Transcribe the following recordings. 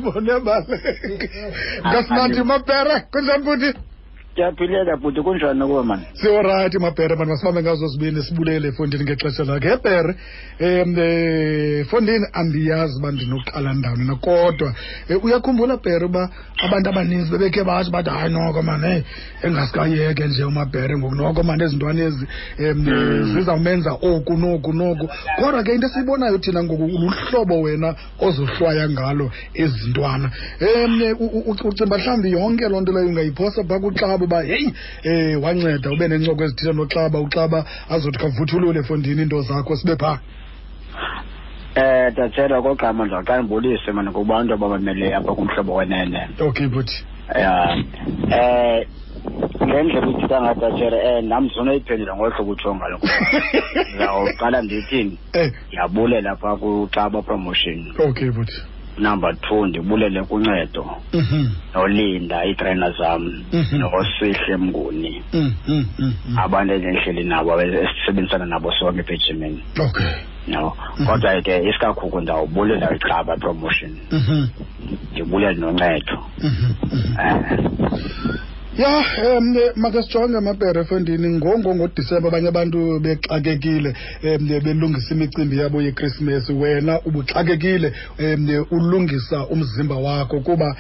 Bonebaleka. Ngasinathi Mabhere, kunjani bhuti? Ndiyaphileka bhuti, kunjani kuwe mani? Siyorayithi Mabhere mani, masibambe ngazo zibini sibulele efondini ngexesha lakhe. Hebhere, fondini andiyazi uba ndinoqala ndawoni na, kodwa uyakhumbula Bhere uba abantu abaninzi bebekhe batsho bathi hayi noko mani, heyi engasikayeke nje uMabhere ngoku, noko mani ezintwana ezi zizawumenza oku noku noku. Kodwa ke into esiyibonayo thina ngoku luhlobo wena ozohlwaya ngalo ezintwana. Ucimba mhlawumbi yonke loo nto leyo ungayiphosa phaa kuXaba uba heyi, wanceda ube nencoko ezithile noXaba, uXaba azothi khavuthulule efondini iinto zakho sibe phaa. Tatshela okokuqala ndizawuqala ndibulise mani kubantu abamameleyo apha kuMhlobo Wenene. Okay bhuti. Ya. Ngendlela uthetha ngayo Tatshela, nam ndizonayiphendula ngolu hlobo utsho ngalo. Ndizawuqala ndithini? Ndiyabulela phaa kuXaba Promotion. Okay bhuti. Number 2, ndibulele kuncedo. Nolinda iitrainer zam, noSihle Mnguni. Abantu endihleli nabo esisebenzisana nabo sonke apha ejimini. No. Kodwa ke isikakhulu ndawubulela iXaba Promotion. Ndibulele noncedo. Ya, make sijonge Mabhere efondini ngoDisemba abanye abantu bexakekile, belungisa imicimbi yabo yeKrisimesi. Wena ubuxakekile, ulungisa umzimba wakho kuba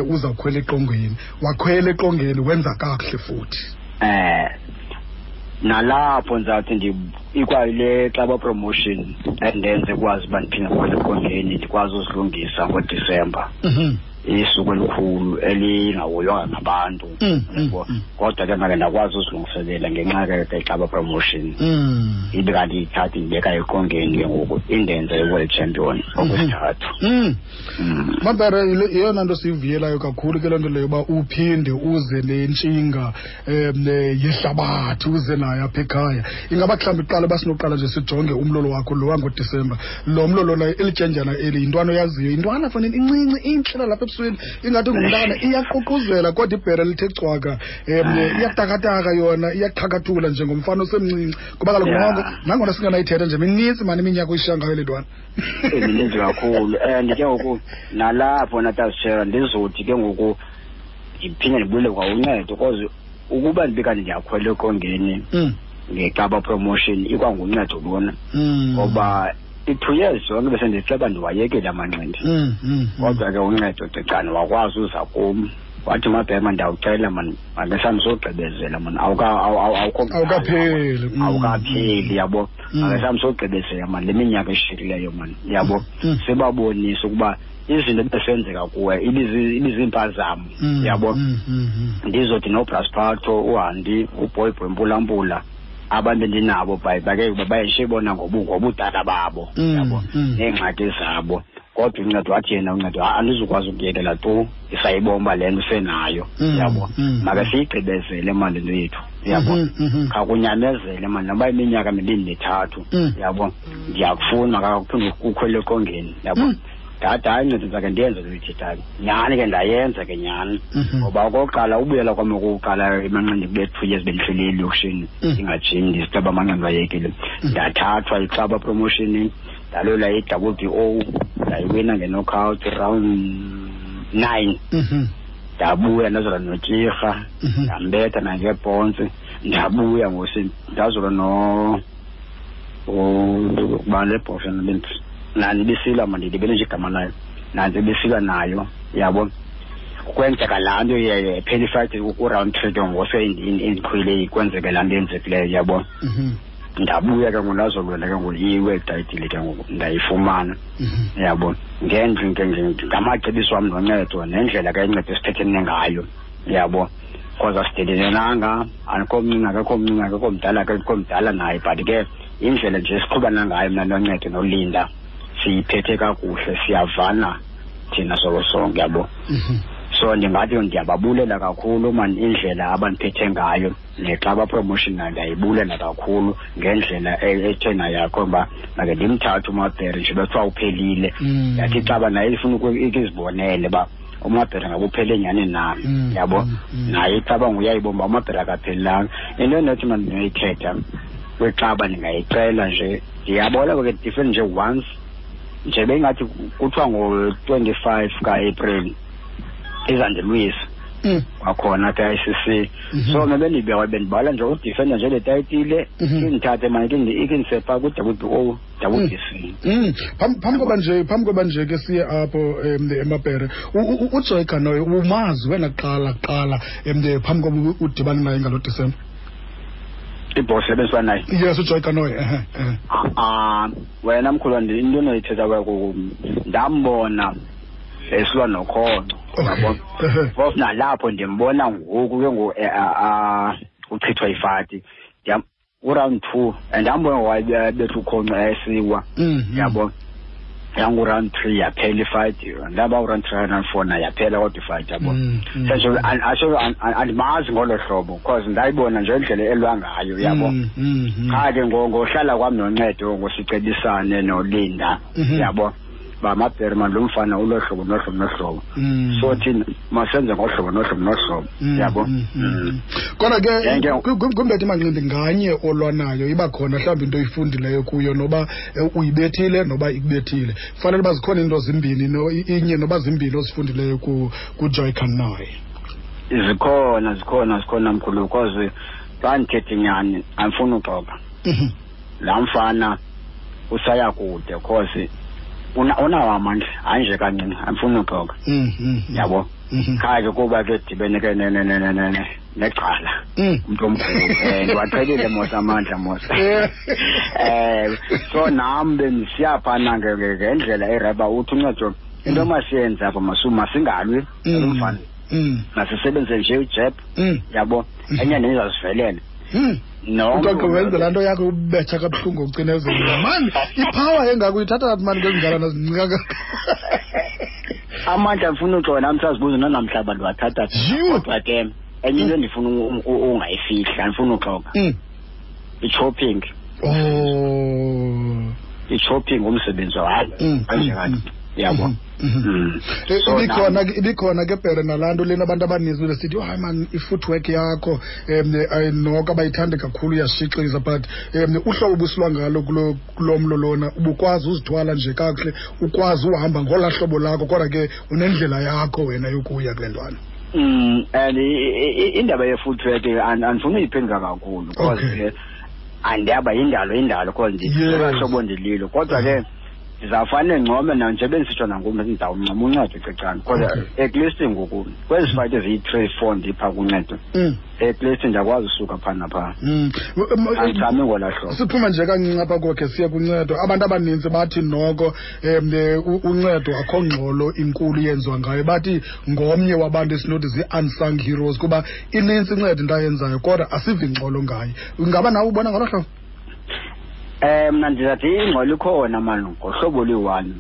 uzawukhwela eqongeni. Wakhwela eqongeni wenza kakuhle futhi. Nalapho ndizawuthi ikwayile Xaba Promotion endenze kwazi uba ndiphinde ndikhwele eqongeni ndikwazi uzilungisa ngoDisemba. Isuku elikhulu elingahoywanga ngabantu. Yabo. Kodwa ke make ndakwazi uzilungiselela ngenxa ke Xaba Promotion. Ibe kanti ithatha indibeka eqongeni ke ngoku indenze i-world champion okwesithathu. Mabhere, yeyona nto siyivuyelayo kakhulu ke loo nto leyo uba uphinde uze nentshinga yehlabathi, uze nayo apha ekhaya. Ingaba mhlawumbi kuqala uba sinoqala nje sijonge umlolo wakho lo wangoDisemba. Lo mlolo loyo, elityendyana eli, yintwana oyaziyo, yintwana fanele incinci, intle lapha ebusweni, ingathi ngumntana, iyaququzela kodwa ibhere lithe cwaka. Iyatakataka yona, iyaqhakathula njengomfana osemncinci. Kuba kaloku noko, nangona singanayithetha nje, minintsi mani iminyaka oyishiya ngayo le ntwana. Mininzi kakhulu. And ke ngoku nalapho natasishera ndizothi ke ngoku ndiphinde ndibuyele kwa uncedo, because ukuba ndibe kanti ndiyakhwela eqongeni ngeXaba Promotion ikwanguncedo lona. Ngoba i-2 years zonke bese ndiceba ndiwayekile amanqindi. Kodwa ke uncedo Cecane wakwazi uza kum. Wathi Mabhema ndiyawucela man, make sami sogqibezela man, awukho mdala, Awukapheli. Awukapheli, yabo. Make sami sogqibezela man, le minyaka eshiyekileyo man, yabo. Sibabonise ukuba izinto ebesenzeka kuwe ibiziimpazamo, yabo. Ndizothi noBraspatho, uHandi, uBoyboy Mpulampula, abantu endinabo bake bayishibona ngobudala babo, yabo, neengxaki zabo. Kodwa uncedo wathi yena uncedo, andizukwazi ukuyekela tu, isayibomba le nto usenayo, yabo. Make siyigqibezele mani le nto yethu, yabo. Khakunyamezele mani, noba iminyaka mibini mithathu, yabo. Ndiyakufuna kakuphinde ukhwele eqongeni, yabo. Ndathi hayi nceda ndizake ndiyenze le ithethayo. Nyhani ke ndayenza ke nyhani. Ngoba okokuqala ubuyela kwam okokuqala emanqindini kube 2 years bendihleli elokishini, ndingajimi, ndiziceba amanqindi ayekile. Ndathathwa iXaba Promotion, ndalwela i-W B O, ndayiwina nge-knockout round 9. Ndabuya ndazolwa noTyirha, ndambetha nangebhontsi, ndabuya ngosi ndazolwa no uba le bhosha nantsi ibisilwa, mandilibele nje igama layo, nantsi ibisilwa nayo, yabo. Kwenzeka laa nto phela ifight ku-round 3 ke ngoku se indiqhwile, kwenzeke laa nto yenzekileyo, yabo. Ndabuya ke ngoku ndazolwela ke ngoku i-world title ke ngoku ndayifumana, yabo. Ngamacebiso wam noncedo nendlela ke inceda esithethene ngayo, yabo. Because asidelenanga, andikho mncinci, akekho mncinci, akekho mdala, akekho mdala naye, but ke indlela nje esiqhubana ngayo mna noncedo noLinda siyiphethe kakuhle, siyavana thina solo sonke, yabo. So ndingathi ndiyababulela kakhulu man indlela abandiphethe ngayo, neXaba Promotion nayo ndiyayibulela kakhulu ngendlela ethe nayo yakho uba make ndimthathe uMabhere nje bekuthiwa uphelile. Yathi iXaba naye ifuna ukuzibonele uba uMabhere ngabe uphele nyhani na, yabo. Naye iXaba nguyayibona uba uMabhere akaphelelanga. Into endinothi mna ndinoyithetha kwiXaba ndingayicela nje, ndiyabona ke different nje once Nje bengathi kuthiwa ngo-25 ka-April izandilwisa kwakhona apha e-ICC. So mna bendibeka bendibhala nje udefenda nje le tayitile, indithathe mane ikindise phaa ku-WBO, WBC. Phambi koba nje ke siye apho emabhere, uJoy Canoy umazi wena kuqala phambi koba udibane naye ngalo Disemba? Ibhosi ebendisiba naye? Yes, uJoy Canoy, ehe. Ah, wena mkhulu, into onoyithetha kwayo, ndambona esilwa nokhonco, yabo. Phofu nalapho ndimbona ngoku ke ngoku uchithwa ifati uround 2 and ndambona wayebetha ukhonco esiwa, yabo. Yangu-round 3 yaphela ifight, ndaba uround 3, round 4 naye yaphela kodwa ifight, yabo. Sentsho asho andimazi ngolo hlobo because ndayibona nje indlela elwa ngayo, yabo. Qha ke ngohlala kwam noncedo, ngosicebisane noLinda, yabo, ba mabhere man, lo mfana ulo hlobo nohlobo nohlobo, so thina masenze ngohlobo nohlobo nohlobo, yabo. Kodwa ke kwimbethi manqindi nganye olwanayo iba khona mhlawumbi into oyifundileyo kuyo, noba uyibethile noba ikubethile, kufanele uba zikhona into zimbini inye noba zimbini ozifundileyo kuJoy Canoy. Zikhona, zikhona, zikhona mkhulu, because xa ndithethe inyani, andifuni uxoka, laa mfana usaya kude because unawo amandla, hayi nje kancinci, andifuni uxoka, yabo. Qha ke kuba ke dibene ke necala umntu omkhulu, ndiwaqhelile mos amandla mos, so nam bendisiya phana ngendlela ereba uthi uncedo into masiyenze apha, masingalwi lo mfana, masisebenzise nje ujab, yabo, enye nenye izawusivelela. No. Uxoxe wenze laa nto yakho ubetha kabuhlungu ucinezela mani, ipower engako uyithatha phi mani kwezingalana zincika kangaka? Amandla, ndifuna uxoka nam, sazibuza nanamhla abantu bathatha. Kodwa ke enye into endifuna ungayifihla, andifuna uxoka, i-chopping. I-chopping umsebenzi, hayi, kanje kanti, yabo. Ibikhona ke bhere nalaa nto lena abantu abaninzi besithi, "Oh, hayi man, i-footwork yakho noko abayithandi kakhulu, iyashixiza," but uhlobo obusilwa ngalo kulo mlo lona, ubukwazi uzithwala nje kakuhle, ukwazi uhamba ngolaa hlobo lakho, kodwa ke unendlela yakho wena yokuya kule ntwana. And indaba ye-footwork andifuni uyiphendula kakhulu because ke andiyaba yindalo indalo because ndilolaa hlobo ndililo, kodwa ke ndizawufane ncome na nje bendisitsho nangoku, ndizawuncoma uncedo cecane because at least ngoku kwezi fight eziyi-3, 4 ndipha kuncedo, at least ndiyakwazi usuka phaa naphaa, andichami ngolaa hlobo. Siphuma nje kancinci apha kokhe siye kuncedo. Abantu abaninzi bathi noko uncedo akho ngxolo inkulu yenziwa ngayo, bathi ngomnye wabantu esinothi zii-unsung heroes kuba inintsi inceda into ayenzayo kodwa asivi ngxolo ngayo. Ingaba nawe ubona ngolo hlobo? Mna ndizathi ingxolo ikhona mani ngohlobo oluyi-one.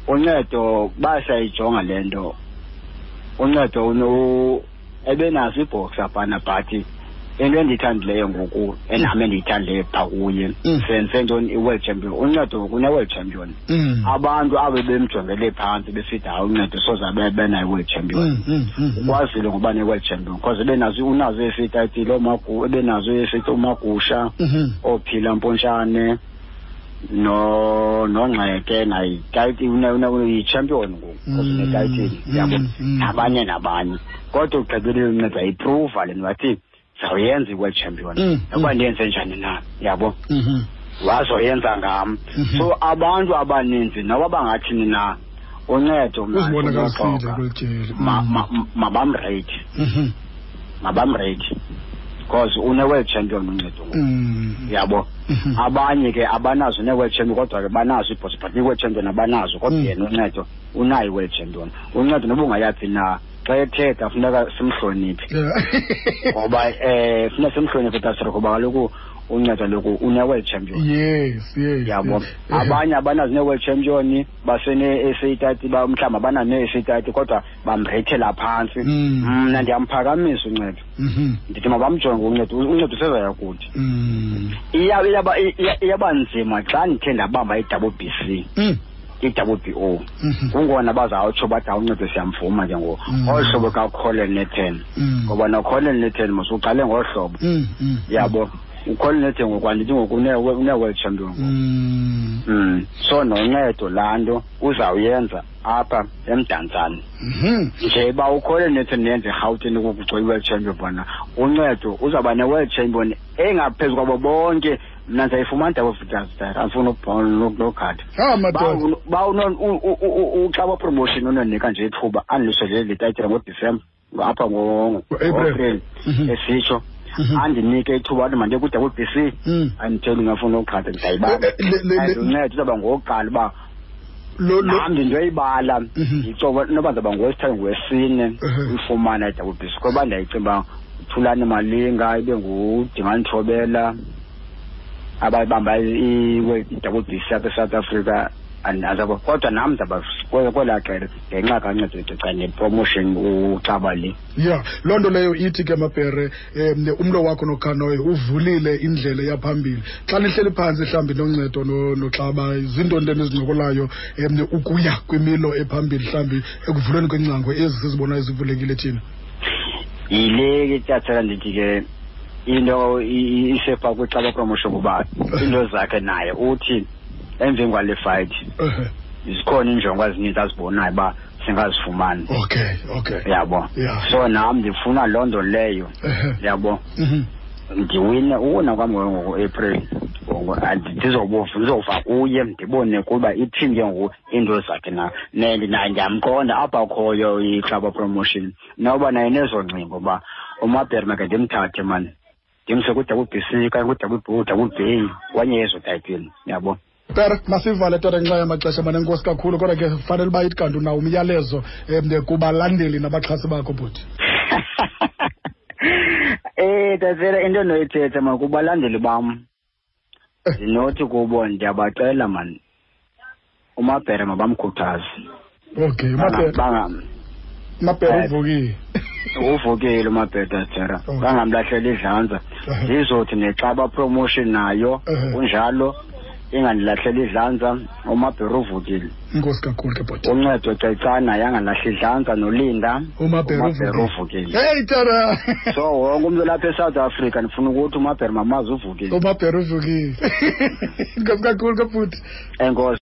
Uncedo basayijonga le nto, uncedo ebenazo ibhoxa phana, but into endiyithandileyo ngoku, enam endiyithandileyo phaa kuye, senze ntoni, i-world champion. Uncedo ngoku une-world champion. Abantu abo bemjongele phantsi besithi hayi, uncedo soze abe benayo i-world champion, ukwazile ngoba ne-world champion because ebenazo, unazo esitayitile oomagu, ebenazo esithi uMagusha, oophila Mpontshane no nongxeke naye yi-champion ngoku because unetayitile, yabo, nabanye nabanye, kodwa ugqibelile uncedo wayiprova le nto, wathi zawuyenza i-world champion noba ndiyenze njani na, yabo, wazoyenza ngam. So abantu abaninzi noba bangathini na, uncedo mna Uzibonakalisile ndinoxoka. Kweli tyeli. Mabamrate, mabamrate because une-world champion uncedo ngoku, yabo. Abanye ke abanazo ne-world champion, kodwa ke banazo ibhosi, but i-world champion abanazo, kodwa yena uncedo unayo i-world champion. Uncedo noba ungayaphi na, xa ethetha funeka simhloniphe, ngoba funeka simhloniphe tasro, ngoba kaloku uncedo loku une-world champion, yabo. Abanye abanazo ne-world champion, basene-SA title, mhlawumbi abanayo ne-SA title, kodwa bamreyithela phantsi. Mna ndiyamphakamisa uncedo, ndithi mabamjonge uncedo, uncedo usezaya kude. Iyaba nzima xa ndithe ndabamba i-double B C, i-double B O, kungona bazawutsho bathi awuncedo siyamvuma ke ngoku, olu hlobo kaColin Nathan, ngoba noColin Nathan mos uqale ngolu hlobo, yabo. Ukhona nethe ngoku, andithi ngoku une-world champion. So noncedo laa nto uzawuyenza apha eMdantsane. Nje uba ukhole nethe nenze eRhawutini kugcwele i-world champion bona, uncedo uzawuba ne-world champion engaphezu kwabo bonke. Mna ndizayifumana double vitals, andifuni nogada. Ah, madoda. Ba uXaba Promotion unonika nje ithuba andilusele le tayitile ngoDisemba apha ngo-April. Ngo-April esitsho. Andinike ithuba athi mandiye ku-double B C. Anditheli ngafuna uqhatha, ndizayibamba. Uncedo uzawuba ngowokuqala uba nam ndindoyibala. Ndicoba noba ndizawuba ngowesithathu, ngowesine uyifumana i-double B C. Ngoba ndiyayicinga uba Thulani Malinga ibe nguDingani Thobela abayibamba i-double B C apha eSouth Africa. Andazabo, kodwa nam ndizawuba kwelaa qela ngenxa kaNcedo Cecane nepromotion uXaba le. Yeah, loo nto leyo ithi ke Mabhere, umlo wakho noKhanoyi uvulile indlela yaphambili. Xa nihleli phantsi mhlawumbi noNcedo noXaba, zintoni nto enizincokolayo ukuya kwimilo ephambili mhlawumbi ekuvulweni kwengcango ezi sizibonayo zivulekile thina? Yile ke tyathela ndithi ke into isepha kwiXaba Promotion kuba into zakhe naye uthi emveni kwale fight zikhona iinjongo ezininzi azibonayo uba singazifumani. Okay. Yabo. So nam ndifuna loo nto leyo. Yabo. Ndiwine uwina kwam ngoApril. Ndizova kuye ndibone kuba ithini ke ngoku iinto zakhe na. Naye ndiyamqonda apha akhoyo iXaba Promotion. Noba naye nezongcingo uba uMabhere make ndimthathe mani. Ndimse ku-double B C okanye ku-double B, double B, kwenye yezo tayitile, yabo. Tara, masivale tara ngenxa yamaxesha mane, enkosi kakhulu, kodwa ke fanele uba ithi kanti unawo umyalezo kubalandeli nabaxhasi bakho bhuti. Tatshela into endinoyithetha man kubalandeli bam. Ndinothi kubo ndiyabacela man, uMabhere mabamkhuthaze. Okay, uMabhere. Mabhere uvukile. Uvukile uMabhere Tatshela. Bangamlahleli idlanza. Ndizothi neXaba Promotion nayo kunjalo, ingandilahleli idlanza, uMabhere uvukile. Inkosi kakhulu ke bhuti. Uncedo Cecana yangalahli idlanza noLinda. uMabhere uMabhere uvukile. uvukile. Hey Tara. So wonke umuntu lapha eSouth Africa ndifuna ukuthi uMabhere mamazi uvukile. uMabhere uvukile. Inkosi kakhulu ke bhuti. Enkosi.